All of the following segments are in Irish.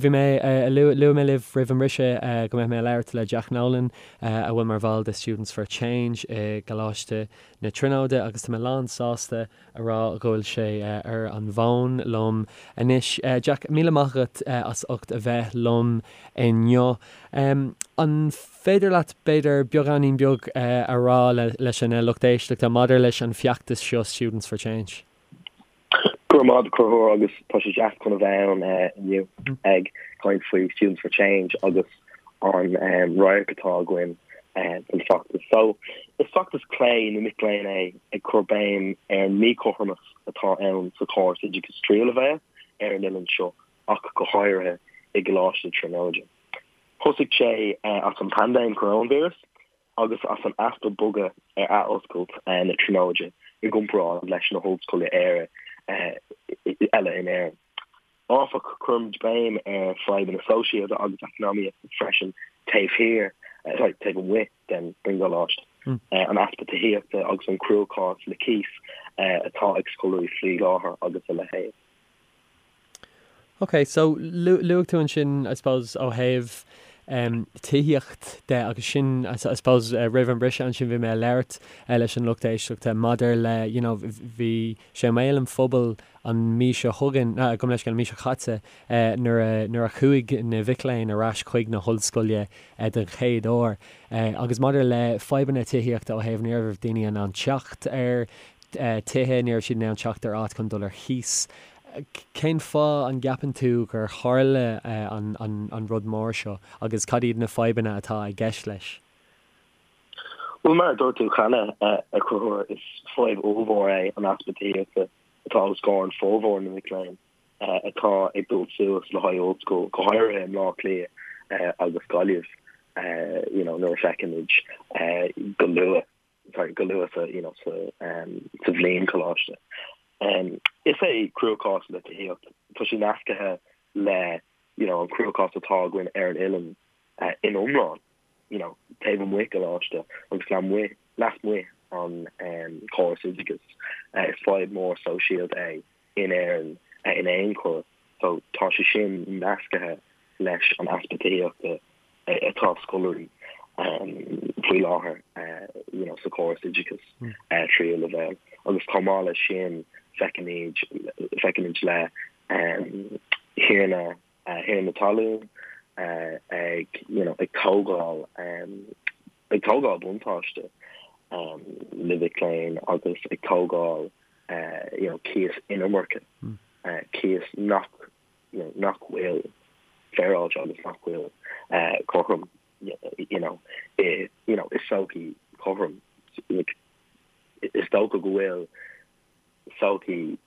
Bhí mé, luaigh mé libh roimh an mbriseadh go mbeadh mé ag labhairt le Jack Nolan, a bhfuil mar bhall de Students for Change i gColáiste na Tríonóide agus tá mé lán sásta a rá go bhfuil sé ar an bhfón liom anois. Jack, míle maith agat as ucht a bheith liom inniu. An féidir leat, b'fhéidir, beagáinín beag a rá leis an lucht éisteachta maidir leis an feachtas seo Students for Change? Go raibh maith agat a Chonchúir agus tá sé deas chun a bheith ann inniu ag caint faoi Students for Change agus an radharc atá againn don feachtas. So, is feachtas clé na mic léinn é ag cur béim ar an míchothromas atá ann sa chóras oideachais tríú leibhéal ar an oileán seo ach go háirithe i gColáiste na Tríonóide. Thosaigh sé as an paindéim coróinvíreas agus as an easpa bogadh ar athoscailt na Tríonóide i gcomparáid leis na hollscoileanna eile in Éirinn. Áfach, cuirimid béim ar fadhbanna sóisialta agus eacnamaíochta freisin taobh thiar, sorry, taobh amuigh den gcoláiste, an easpa tithíochta agus an cruachás le cíos atá ag scoláirí faoi láthair agus a leithéid. Ok, so luaigh tú ansin, I suppose, ó thaobh tithíocht de agus sin, I suppose, roimh an briseadh ansin bhí mé ag labhairt leis an lucht éisteachta maidir le, you know, bhí sé i mbéal an phobail an mí seo chugainn, gabh mo leithscéal, an mí seo caite nuair a, nuair a chuaigh na mhic léinn ar ais chuig na hollscoile den chéad uair agus maidir le fadhbanna tithíochta ó thaobh ní raibh daoine in ann teacht ar tithe, ní raibh siad in ann teacht ar áit chun dul ar chíos. Cén fáth an gceapann tú gur tharla an rud mór seo agus cad iad na fadhbanna atá i gceist leis? Bhuel, mar a dúirt tú cheana, a Chonchúir, is fadhb ollmhór é an easpa tithíochta atá os comhair an formhór na mic léinn atá ag dul suas le haghaidh ollscoil, go háirithe i mBleá Cliath agus Gaillimh, you know, nuair a feicimid go luath. sorry, go luath sa, you know, sa, um, sa bhliain coláiste. Um, is é cruachás le tithíocht, tá sé nascaithe le, you know, an cruachás atá againn ar an oileán uh, in iomlán, you know, taobh amuigh coláiste agus lasmuigh, lasmuigh an um, córas oideachais. Uh, is fadhb mór sóisialta é in Éirinn uh, in aon chor. So tá sé sin nascaithe leis an easpa tithíochta atá scoláirí faoi láthair you know sa chóras oideachais tríú leibhéal agus chomh maith leis sin feicimid feicimid le thiarna thiarna talún ag you know ag tógáil ag tógáil buntáiste le mhic léinn agus ag tógáil you know cíos iomarcach cíos nach you know, nach bhfuil féaráilte agus nach bhfuil cothrom, you know, i, you know, i sochaí chothrom. Like, is dócha go bhfuil sochaí,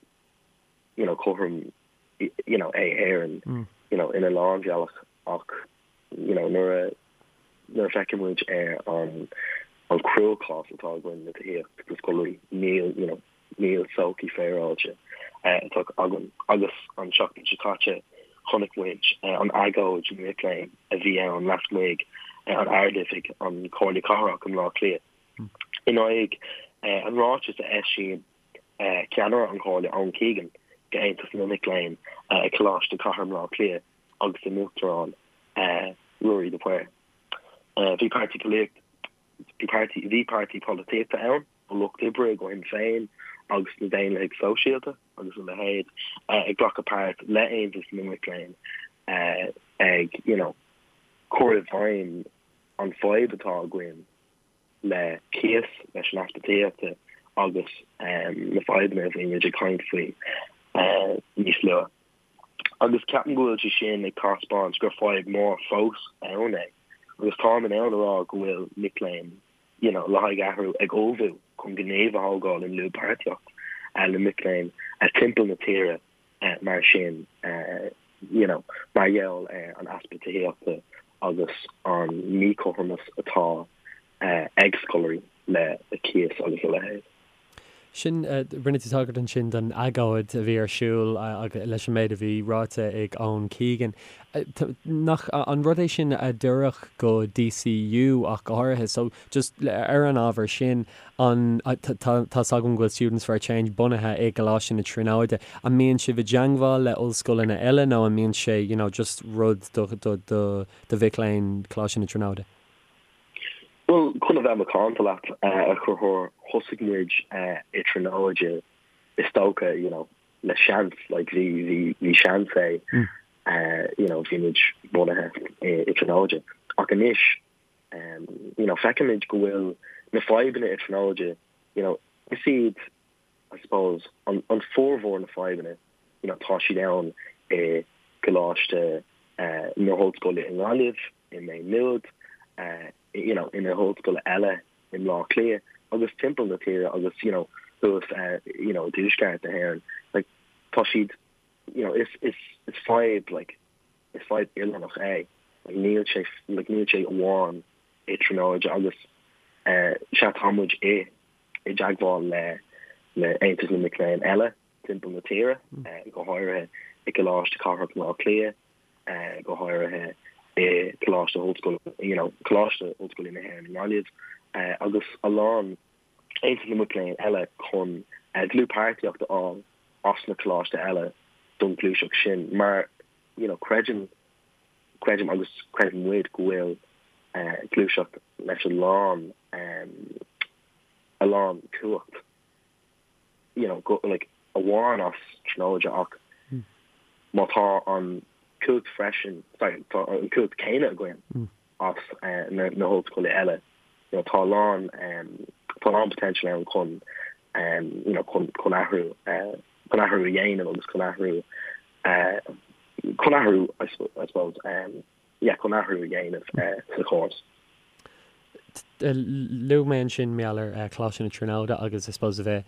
you know, cothrom, you know, é Éirinn, mm. you know, ina lán bealach ach, you know, nuair a nuair a feiceann muid ar an an cruachás atá againn le tithíocht do scoláirí, níl, you know, níl sochaí féaráilte atá againn. Agus an tseachtain seo caite chonaic muid an agóid na mic léinn a bhí ann lasmuigh an Ard-Oifig an Chomhairle Cathrach i mBleá Cliath in aghaidh an ráiteas a eisíonn ceannaire an Chomhairle Eoin Keegan go Aontas na Mic Léinn ag Coláiste Cathair Bhaile Átha Cliath agus a n-uachtarán Ruairí de Paor. Bhí páirtí bhí páirtí polaitíochta ann an Lucht Oibre go Shinn Féin agus na Daonlathaigh Sóisialta agus a leithéid ag glacadh páirt le Aontas na Mic Léinn ag you know cur i bhfeidhm an fadhb atá againn le cíos, leis an easpa tithíochta agus na fadhbanna a bhí muid ag caint faoi níos luaithe. Agus ceapaim go bhfuil sé sin ag taispeáint gur fadhb mór fós ann é agus táim in ann a rá go bhfuil mic léinn you know, le haghaidh athrú ag ullmhú chun gníomh a thógáil i ndlúthpháirtíocht le mic léinn timpeall na tíre mar sin, you know, mar gheall ar an easpa tithíochta agus an míchothromas atá ag scoláirí le cíos agus a leithéid. Sin, rinne tú tagairt ansin don agóid a bhí ar siúl leis an méid a bhí ráite ag Eoin Keegan. Nach an rud é sin a d'oirfeadh go DCU ach go háirithe? So, just ar an ábhar sin, an, tá 's agam go bhfuil Students for a Change bunaithe i gColáiste na Tríonóide. An mbíonn sibh i dteangmháil le ollscoileanna eile nó an mbíonn sé, you know, just rud do, do, do, do mhic léinn Choláiste na Tríonóide? Bhuel, chun a bheith macánta leat, a Chonchúir, thosaigh muid i Tríonóide, is dócha, you know, le seans, like, bhí, bhí, bhí seans é, you know, bhí muid bunaithe i Tríonóide. Ach anois, you know, feicimid go bhfuil na fadhbanna i Tríonóide, you know, is iad, I suppose, an, an formhór na fadhbanna, you know, tá siad ann i gColáiste na hOllscoile i nGaillimh, i Maigh Nuad, you know, i na hollscoile eile i mBleá Cliath agus timpeall na tíre agus, you know, thuas, you know, i dtuaisceart na hÉireann. Like, tá siad, you know, is, is, is fadhb, like, is fadhb oileánach é. Like, níl sé, like, níl sé amháin i Tríonóide agus, eh, sea, tá muid i, i dteagmháil le, le Aontas na Mic Léinn eile timpeall na tíre, eh, go háirithe i gColáiste Cathrach Bhaile Átha Cliath, go háirithe i gColáiste Ollscoile, you know, Coláiste Ollscoile na hÉireann i nGaillimh, agus a lán Aontas na Mac Léinn eile chun dlúthpháirtíocht a fháil as na coláiste eile don ghluaiseacht sin mar, you know, creidim, creidim agus creideann muid go bhfuil gluaiseacht leis a lán, a lán cumhacht. you know, go, like, amháin as Tríonóide ach má tá an cumhacht freisin, sorry, tá an cumhacht céanna againn as na, na hollscoile eile, you know, tá a lán, tá a lán potential ann chun, you know, chun, chun athrú, chun athrú a dhéanamh agus chun athrú, chun athrú, I suppose, yeah, chun athrú a dhéanamh sa chóras. Luaigh mé ansin mar gheall ar Choláiste na Tríonóide agus I suppose a bheith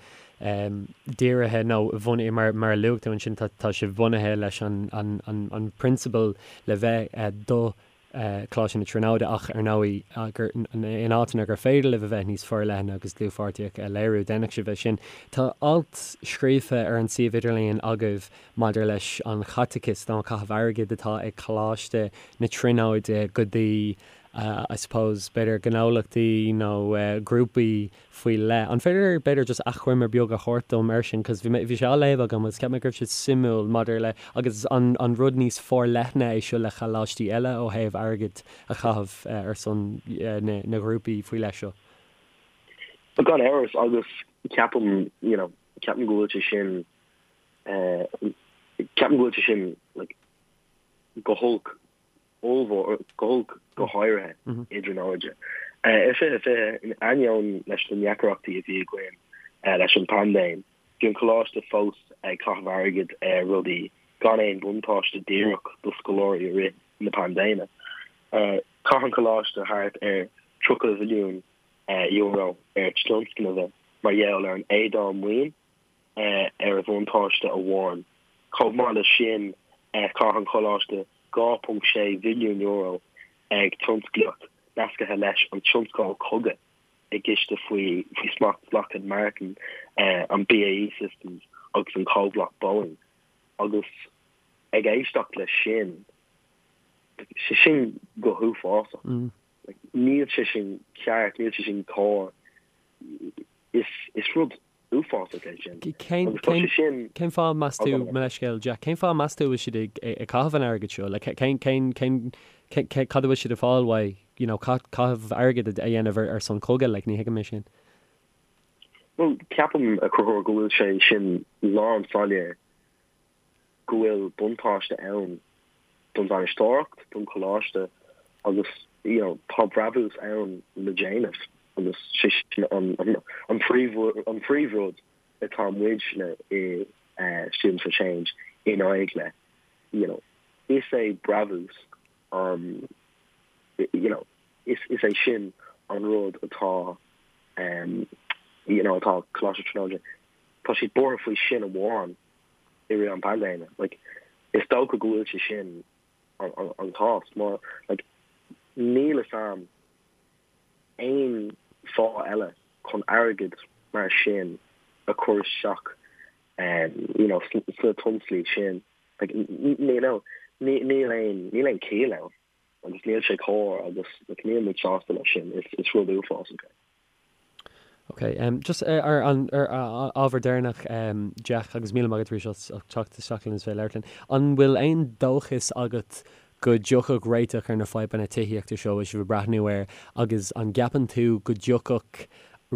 dírithe nó bhunaithe mar mar a luaigh tú ansin tá tá sibh bunaithe leis an an an an prionsabal le bheith do Choláiste na Tríonóide ach ar ndóigh gur in áiteanna gur féidir libh a bheith níos forleithne agus dlúthpháirtíocht a léiriú déanfaidh sibh é sin. Tá alt scríofa ar an suíomh idirlíon agaibh maidir leis an chaiteachas nó an caitheamh airgid atá ag Coláiste na Tríonóide go dtí I suppose, b'fhéidir gnólachtaí nó grúpaí faoi leith. An féidir b'fhéidir just achoimre beag a thabhairt dom air sin cos bhí mé, bhí sé á léamh agam agus cheap mé go raibh sé suimiúil maidir le, agus an an rud níos forleithne é seo le choláistí eile ó thaobh airgead a chaitheamh ar son na na ghrúpaí faoi leith seo? Gan amhras agus ceapaim, you know, ceapaim go bhfuil sé sin, ceapaim go bhfuil sé sin like go holc ollmhór, go holc go háirithe i dTríonóide. I 2020, in ainneoin leis na ndeacrachtaí a bhí againn leis an bpaindéim, bhí an coláiste fós ag caitheamh airgid ar rudaí gan aon bhuntáiste díreach do scoláirí i rith na paindéime. Chaith an coláiste thart ar €30 mhilliún ar tionscnaimh mar gheall ar an éadáil maoin ar a bhuntáiste amháin. Chomh maith leis sin, chaith an coláiste €2.6 mhilliún ag tionsclaíocht nasctha leis an tionscal cogaidh i gciste faoi smacht Lockheed Martin, an BAE Systems agus an comhlacht Boeing. Agus ag éisteacht leis sin, sé sin go huafásach. Níl sé sin ceart, níl sé sin cóir. Is rud uafásach é sin. Cén, Agus tá sé sin. Cén fáth meas tú, mo leithscéal Jack, cén fáth meas tú a bhfuil siad ag, ag caitheamh an airgid seo? Like, cén, cén, cén, cén, cad a bhfuil siad ag fáil uaidh, you know, caitheamh airgid a dhéanamh ar, ar son cogaidh, like, ní thuigim é sin. Bhuel, ceapaim, a Chonchúir, go bhfuil sé sin lán soiléir go bhfuil buntáiste ann don bhainisteoireacht, don choláiste agus you know tá brabús ann le déanamh agus sé sin an an príomh an príomhrud atá muidne i Students for Change in aghaidh le you know is é brabús an you know is is é sin an rud atá um you know atá Coláiste Tríonóide tá siad buartha faoi sin amháin i rith an paindéime. Like, is dócha go bhfuil sé sin an, an, an cás mar like, níl fhios a'm aon fáth eile chun airgead mar sin. a chur isteach you know sna tionsclaí sin like you know níl aon níl aon chiall ann agus níl sé cóir agus like níl muid sásta leis sin is is rud uafásach é. Ok, just ar an ar ábhar deireanach Jack agus míle maith agat arís as teacht isteach linn is bheith ag labhairt linn. An bhfuil aon dóchas agat go dtiocfadh réiteach ar na fadhbanna tithíochta seo a bhfuil sibh ag breathnú air agus an gceapann tú go dtiocfadh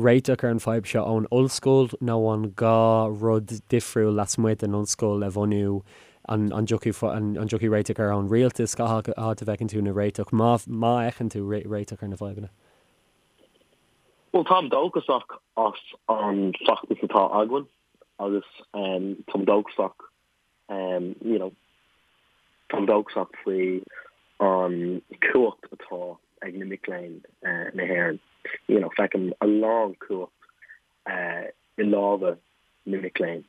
réiteach ar an fadhb seo ón ollscoil nó an gá rud difriúil lasmuigh den ollscoil a bhunú an an dtiocfaidh an dtiocfaidh réiteach air ón rialtas cá háit a bhfeiceann tú na réiteach má má fheiceann tú réiteach ar na fadhbanna? Bhuel, táim dóchasach as an feachtas atá againn agus táim dóchasach, you know, táim dóchasach faoi an cumhacht atá ag na mic léinn na hÉireann. You know, feicim a lán cumhacht i lámha na mic léinn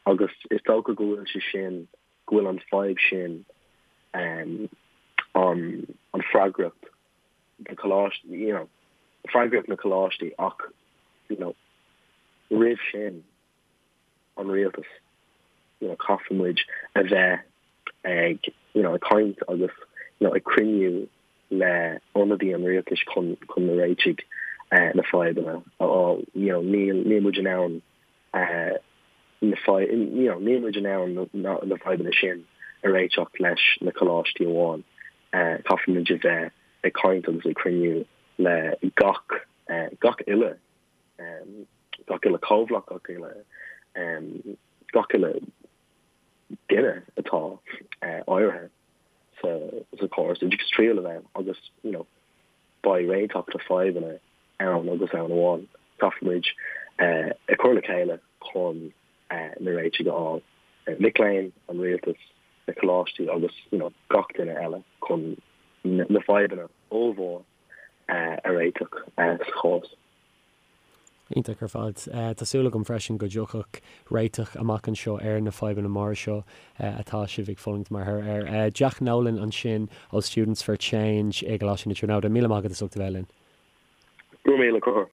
agus is dócha go bhfuil sé sin, go bhfuil an fadhb sin, an an freagracht na coláistí, you know, freagracht na coláistí ach, you know, roimh sin an rialtas, you know, caithfidh muid a bheith ag, you know, ag caint agus, you know, ag cruinniú le ionadaí an rialtais chun, chun na réitigh eh, na fadhbanna a fháil, you know, níl, níl muid in ann eh, na fadhb, you know, níl muid in ann na, na, na fadhbanna sin a réiteach leis na coláistí amháin. Caithfidh muid a bheith ag caint agus ag cruinniú le gach, gach uile, gach uile comhlacht, gach uile, gach uile duine atá áirithe sa, sa chóras oideachais triail a bheith agus, you know, beidh réiteach na fadhbanna ann agus ann amháin. Caithfidh muid ag cur le chéile chun na réitigh a fháil. Mic léinn, an rialtas, na coláistí agus you know gach duine eile chun na fadhbanna ollmhór a réiteach sa chóras. Iontach ar fad. Tá súil agam freisin go dtiocfadh réiteach amach anseo ar na fadhbanna móra seo atá sibh ag fulaingt mar thoradh air. Jack Nolan ansin ó Students for Change i gColáiste na Tríonóide. Míle maith agat as ucht a bheith linn. Go raibh míle.